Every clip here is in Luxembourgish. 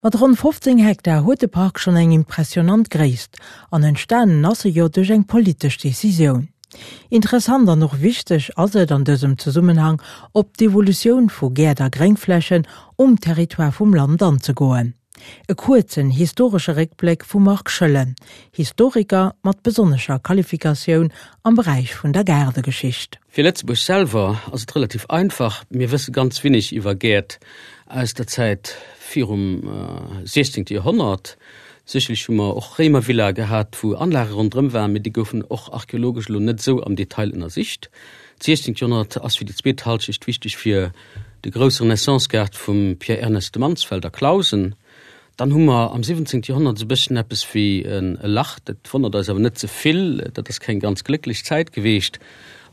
Mat ronn 15 Hektar huet de Park schonn eng impressionant Gréisst, an entstanen ass e jo duerch eng politesch Decisioun. Interessant an och wichteg ass et an dësem Zesummenhang, op d'Evolutioun vu Gäert a Gréngflächen um Territoire vum Land anzegoen. E kuerzen historesche Réckbléck vum Marc Schoellen, Historiker mat besonnescher Qualifikatioun am Beräich vun der Gaardegeschicht. Fir Lëtzebuerg selwer ass et relativ einfach, Mir wësse ganz winnig iwwer Gäert aus der Zäit virum 16. Joerhonnert. Sécherlech hu mer och Réimervillae gehat, wou Anlage ronderëm waren, mee déi goufen och archeologesch elo net esou am Detail ënnersicht. D'siechzéngt Joerhonnert ass fir déi zweet Halschecht wichteg fir de grousse Renaissance-Gaart vum Pierre Ernest de Mansfeld a Clausen. Dann hu mer am 17. Joerhonnert esou e bësschen eppes wéi e Lach, dat wonnert eis awer net ze vill, dat ass keng ganz glécklech Zäit geweecht.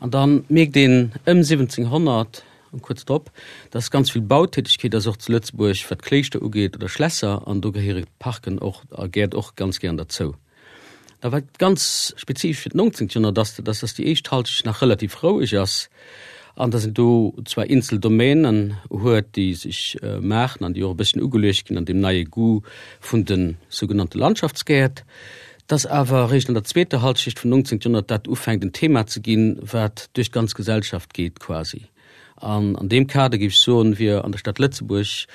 An da mierkt een ëm 1700 an kuerz drop, dass ganz vill Bautätegkeet ass, och zu Lëtzebuerg, wat Kléischter ugeet oder Schlässer, an do gehéiere Parken och a Gäert och ganz gären derzou. A wat ganz spezifesch fir d'nongzéngt Joerhonnert ass, dat ass, dass déi éischt Halschecht nach relativ roueg ass an dass een do zwar eenzel Domänen huet, déi sech maachen an déi och e bësschen ugeluecht ginn an deem neie Goût vun de sougenannte Landschaftsgäert, dass awer eréischt an der zweeter Halschecht vum nongzéngt Joerhonnert dat ufänkt en Thema ze ginn, wat duerch d'ganz Gesellschaft geet quasi. An an deem Kader, géif ech soen, wier an der Stad Lëtzebuerg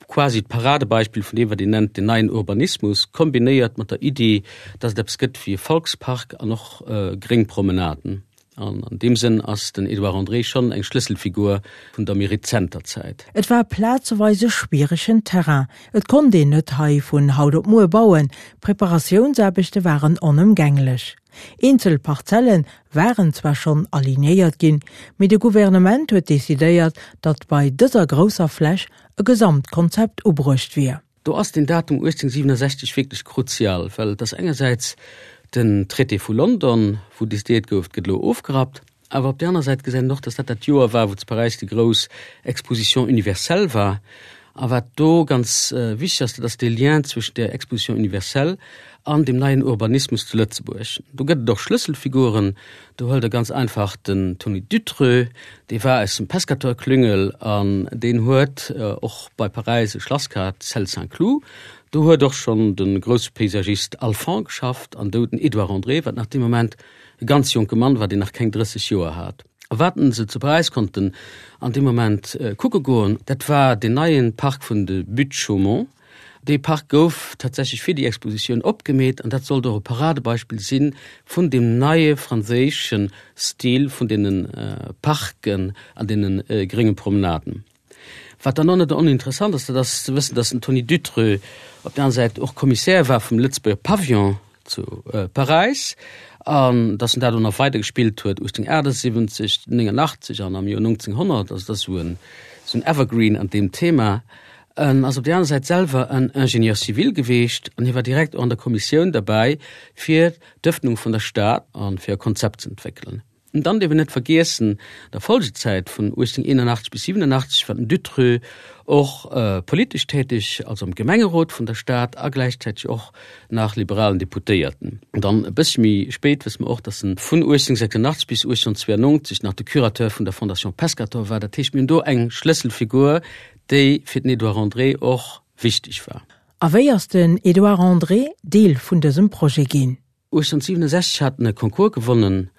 quasi d'Paradebeispill vun deem, wat een nennt den neien Urbanismus, kombinéiert mat der Iddi, dass et eppes gëtt wéi e Volkspark an och gréng Promenaden. An an deem Sënn ass den Edouard André schonn eng Schlësselfigur vun der méi rezenter Zäit. Et war plazeweis e schwieregen Terrain. Et konnt een net hei vun haut op muer bauen, Preparatiounsaarbechte waren onëmgänglech. Eenzel Parzelle waren zwar schonn alignéiert ginn, mee de Gouvernement huet decidéiert, datt bei dëser grousser Fläch e Gesamtkonzept ubruecht wier. Do ass den Datum 1867 wierklech kruzial, well et ass engersäits den Traité vu London, wou decidéiert gouf, et gëtt elo ofgerappt, awer op där aner Säit gesäit een och, datt dat dat Joer war, wou zu Paräis déi grouss Exposition universelle war. A wat do ganz wichteg ass, dat ass dee Lien zwëschen där Exposition universelle an deem neien Urbanismus zu Lëtzebuerg. Do gëtt et och Schlësselfiguren. Do huelt Der ganz einfach den Tony Dutreux, dee war aus dem Pescator-Klüngel an deen huet och bei Paräis e Schlass gehat, Celle Saint-Cloud. Do huet och schonn de grousse Paysagist Alphand geschafft an do den Edouard André, wat nach dee Moment e ganz jonke Mann war, deen nach keng 30 Joer hat. A wat se zu Paräis konnten an deem Moment kucke goen, dat war deen neie Park vun de Buttes-Chaumont. Dee Park gouf tatsächlech fir déi Expositioun opgemeet an dat sollt och e Paradebeispill si vun deem neie franséische Stil vun deene Parken an deene grénge Promenaden. Wat dann och net oninteressant ass, dat ass ze wëssen, datt den Tony Dutreux op der aner Säit och Commissaire war vum Lëtzebuerger Pavillon zu Paräis an datt en dat och nach weider gespillt huet 1878, 89 an am Joer 1900. Also dat ass esou en esou en Evergreen an deem Thema. En ass op där aner Säit selwer en Ingénieur civil geweecht an hie war direkt och an der Kommissioun derbäi fir d'Ëffnung vun der Stad a fir e Konzept ze entwéckelen. An dann dierf een net vergiessen, an der Folgezäit vun 1881 bis 87 war den Dutreux och politesch täteg, also am Gemengerot vun der Stad a gläichzäiteg och nach liberalen Deputéierten. An dann e bëssche méi spéit wësse mer och, datt en vun 1886 bis 1892 nach de Curateur vun der Fondation Pescator war. Dat heescht, mir hunn do eng Schlësselfigur, déi fir den Edouard André och wichteg war. A wéi ass den Edouard André Deel vun dësem Projet ginn? 1867 hat en e Concours gewonnen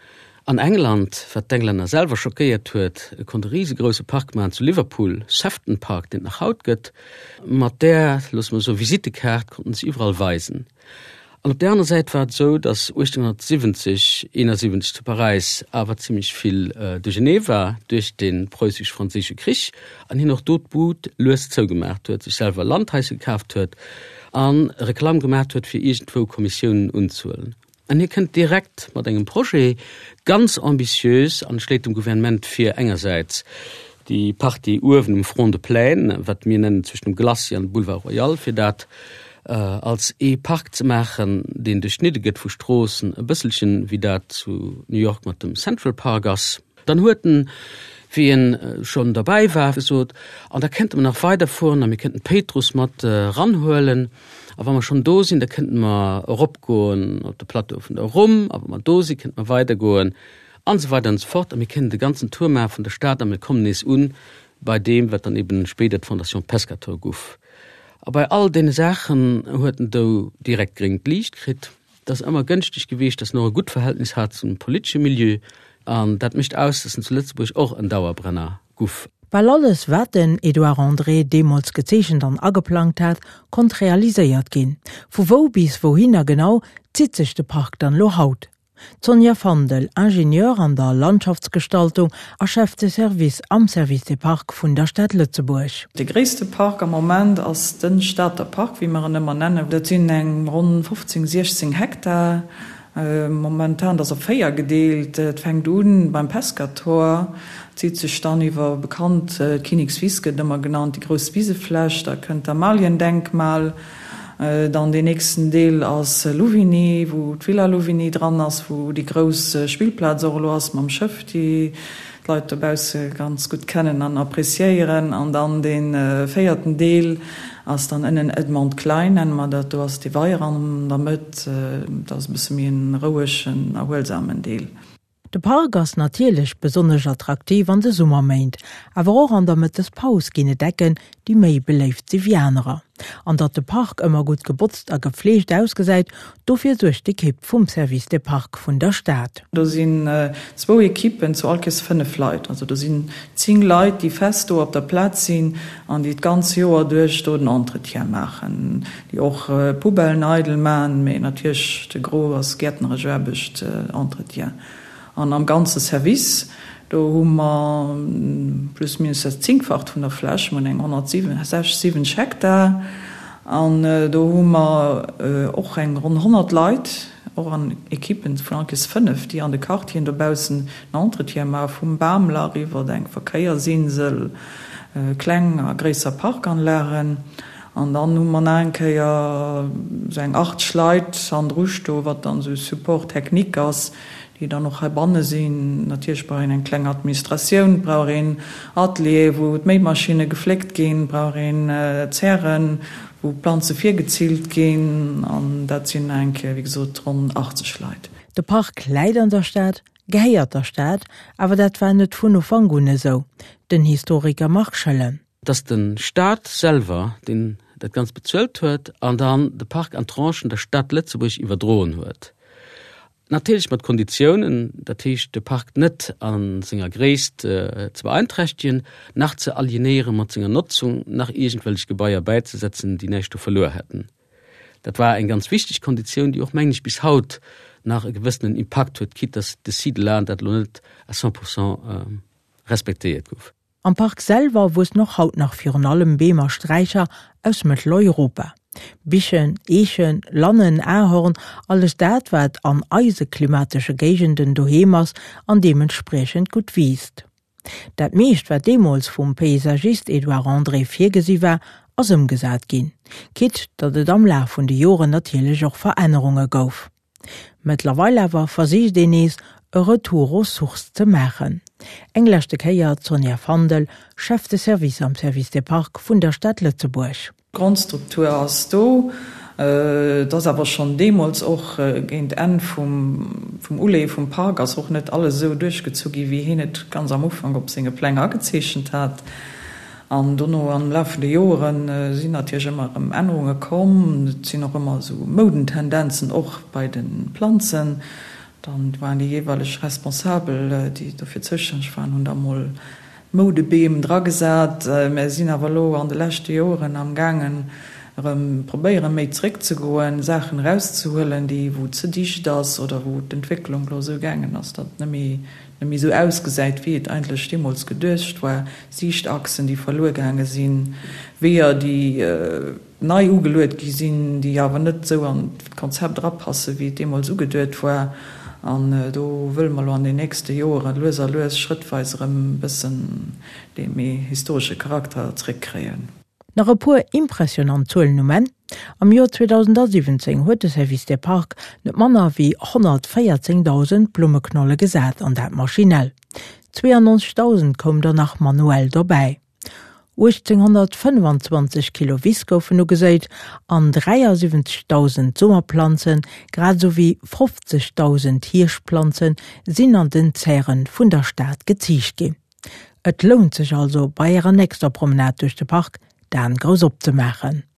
an England, wat d'Englänner selwer schockéiert huet. E konnt e risegrousse Park maachen zu Liverpool, Sefton Park, deen et nach haut gëtt. Mat där, loosse mer soen, Visittekaart konnten se iwwerall weisen. An op där aner Säit war et esou, datt 1870, 71 zu Paräis awer zimlech vill Duerchernee war duerch de Preussisch-Franséische Krich an hien och do d'Bud lues zougemaach huet, sech selwer Landhaise kaaft huet a Reklamm gemaacht huet fir iergendwou Kommissiounen unzehuelen. An hie kënnt direkt mat engem Projet, ganz ambitiös, an schléit dem Gouvernement vir, engersäits déi Partie uewen um Front de Plaine, wat mir nennen zwëschen dem Glacis an dem Boulevard Royal, fir dat als ee Park ze maachen, deen duerchschnidde gëtt vu Stroossen, e bësselchen wéi dat zu New York mat dem Central Park ass. Dann huet en, wéi en schonn derbäi war, gesot, An da kénnte mer nach weiderfueren a mir kénnten d'Péitruss mat eranhuelen. A wa mer schonn do sinn, da kénnte mer eropgoen op de Plateau vun der Rumm. A wa mer do sinn, kénnte mer weidergoen an esou weider an esou fort. A mir kénnten de ganzen Tour maache vun der Stad a mir kommen nees un bei deem, wat dann eben spéider d'Fondation Pescator guff. A bei all deene Saachen huet en do direkt gréngt Liicht kritt. Et ass ëmmer gënschteg gewiescht, datt en och e gutt Verhältnis hat zum politesche Milieu. An dat mécht aus, datt en zu Lëtzebuerg och en Dauerbrenner guff. Bal alles, wat den Edouard André deemools gezeechent an ageplangt hat, konnt realiséiert ginn. Vu wou bis wouhinner genau zitt sech de Park dann elo haut? D'Sonja Fandel, Ingenieur an der Landschaftsgestaltung a Chef de Service am Service des Parcs vun der Stad Lëtzebuerg. De gréisste Park am Moment ass de Stater Park, wéi mer en ëmmer nennen. Dat sinn eng ronn 15, 16 Hektar. Momentan, dat ass op 4 gedeelt. Et fänkt u beim Pescator, zitt sech dann iwwer bekannt d'Kinnekswiss gëtt ëmmer genannt, déi grouss Wisefläch, da kënnt d'Amaliendenkmal, Dann deen nächsten Deel ass Louvigny, wou d'Villa Louvigny dran ass, wou déi grouss Spillplaz och elo ass mam Schëff, déi d'Leit dobausse ganz gutt kennen an appréciéieren. An dann dee véierten Deel ass dann ënnen Edmond Klein, nenne mer dat. Do ass dee Weier an der Mëtt. Dat ass e bësse méi en rouegen, erhuelsamen Deel. De Park ass natierlech besonnesch attraktiv an de Summerméint, awer och an der Mëttespaus ginn et Ecken, déi méi beléift si wéi anerer. An datt de Park ëmmer gutt gebotzt a gefleegt ausgesäit, dofir suergt d'Ekipp vum Service des Parcs vun der Stad. Do sinn zwou Ekippen zu all Kees 5 Leit. Also do sinn 10 Leit, déi fest do op der Plaz sinn an déi d'ganz Joer duerch do den Entretien maachen, déi och Poubellen eidel maachen, mee natierlech de Gros ass gäertneresch Aarbecht, Entretien. An am ganze Service, do hu mer plus minus dat Zéngfacht vun der Fläch, mer hunn eng 167, 70 Hektar an do hu mer och eng ronn 100 Leit, och an Ekippen vun all Kees 5, déi an de Quartieren dobaussen den Entretien maachen, vum Bamlach iwwert eng Verkéiersinsel, kleng a gréisser Parkanlagen. An dann hu mer nach eng Kéier esou eng 80 Leit hannendru stoen, wat dann esou Support technique ass, déi dann och heibanne sinn. Natierlech brauch een eng kleng Administratioun, et brauch een Ateliere wou d'Méimaschinne gefléckt ginn, et brauch een Zären, wou d'Planze virgezillt ginn. An dat sinn nach eng Kéier, wéi gesot, ronn 80 Leit. De Park läit an der Stad, gehéiert der Stad, awer dat war net vun Ufank un esou. Den Historiker Marc Schoellen. Et ass de Staat selwer, deen dat Ganzt bezuelt huet an dann de Park an Tranchen der Stad Lëtzebuerg iwwerdroen huet. Natierlech mat Konditiounen, dat heescht de Park net a senger Gréisst ze beeinträchtegen, nach ze alienéiere mat senger Notzung, nach iergendwellech Gebaier bäizesetzen, déi näischt do verluer hätten. Dat war eng ganz wichteg Konditioun, déi och, mengen ech, bis haut nach e gewëssenen Impakt huet, quitte dass de Site là dat elo net à 100 pourcent respektéiert gouf. Am Park selwer wuessen och haut nach virun allem Beem a Sträicher aus Mëtteleuropa. Bichen, Eechen, Lannen, Ahorn, alles dat wat an eise klimatesche Géigenden doheem ass an deementspriechend gutt wiisst. Dat meescht wat deemools vum Paysagist Edouard André virgesi war, ass ëmgesat ginn, quitte datt et am Laf vun de Joren natierlech och Verännerunge gouf. Mëttlerweil awer versicht een nees, e Retour aux sources ze maachen. Eng leschte Kéier d'Sonja Fandel, Chef de Service am Service des Parcs vun der Stad Lëtzebuerg. D'Grondstruktur ass do. Et ass awer schonn deemools och géint Enn vum Uleeë vum Park ass och net alles esou duerchgezu gi wéi hien et ganz am Ufank op senge Pläng agezeechent hat. An dono am Laf vun de Joere sinn natierlech ëmmer erëm Ännerunge komm. Et sinn och ëmmer esou Moudentendenzen och bei de Planzen. Dann waren déi jeeweileg Responsabel, déi dofir zoustänneg waren, hunn da mol Moudebeem dragesat. Mär sinn awer elo an de leschte Joeren am gaangen erëm probéiere méi zeréckzegoen, Saachen erauszehuelen, déi wou ze dicht ass oder wou d'Entwécklung elo esou gaangen ass, datt et net méi net méi esou ausgesäit, wéi et eigentlech deemools geduecht war, Siichtachsen, déi verluer gaange sinn, Weeër, déi nei ugeluet gi sinn, déi awer net esou an d'Konzept erapassen, wéi et deemools ugeduet war. An do wëlle mer elo an den nächste Joere lues a lues, schrëttweis erëm e bëssen dee méi historesche Charakter zréckkréien. Nach e puer impressionant Zuelen um Enn, Am Joer 2017 huet de Service des Parcs net manner wéi 114.000 Blummeknolle gesat, an dat maschinell. 92.000 koum der nach manuell dobäi. 1.825 Kilo Wiss goufen ugeséit an 73.000 Summerplanzen, grad esou wéi 50.000 Hierschtplanze sinn an den Zären vun der Stad geziicht ginn. Et lount sech also bei ärer nächster Promenade duerch de Park d'Aen grouss opzemaachen.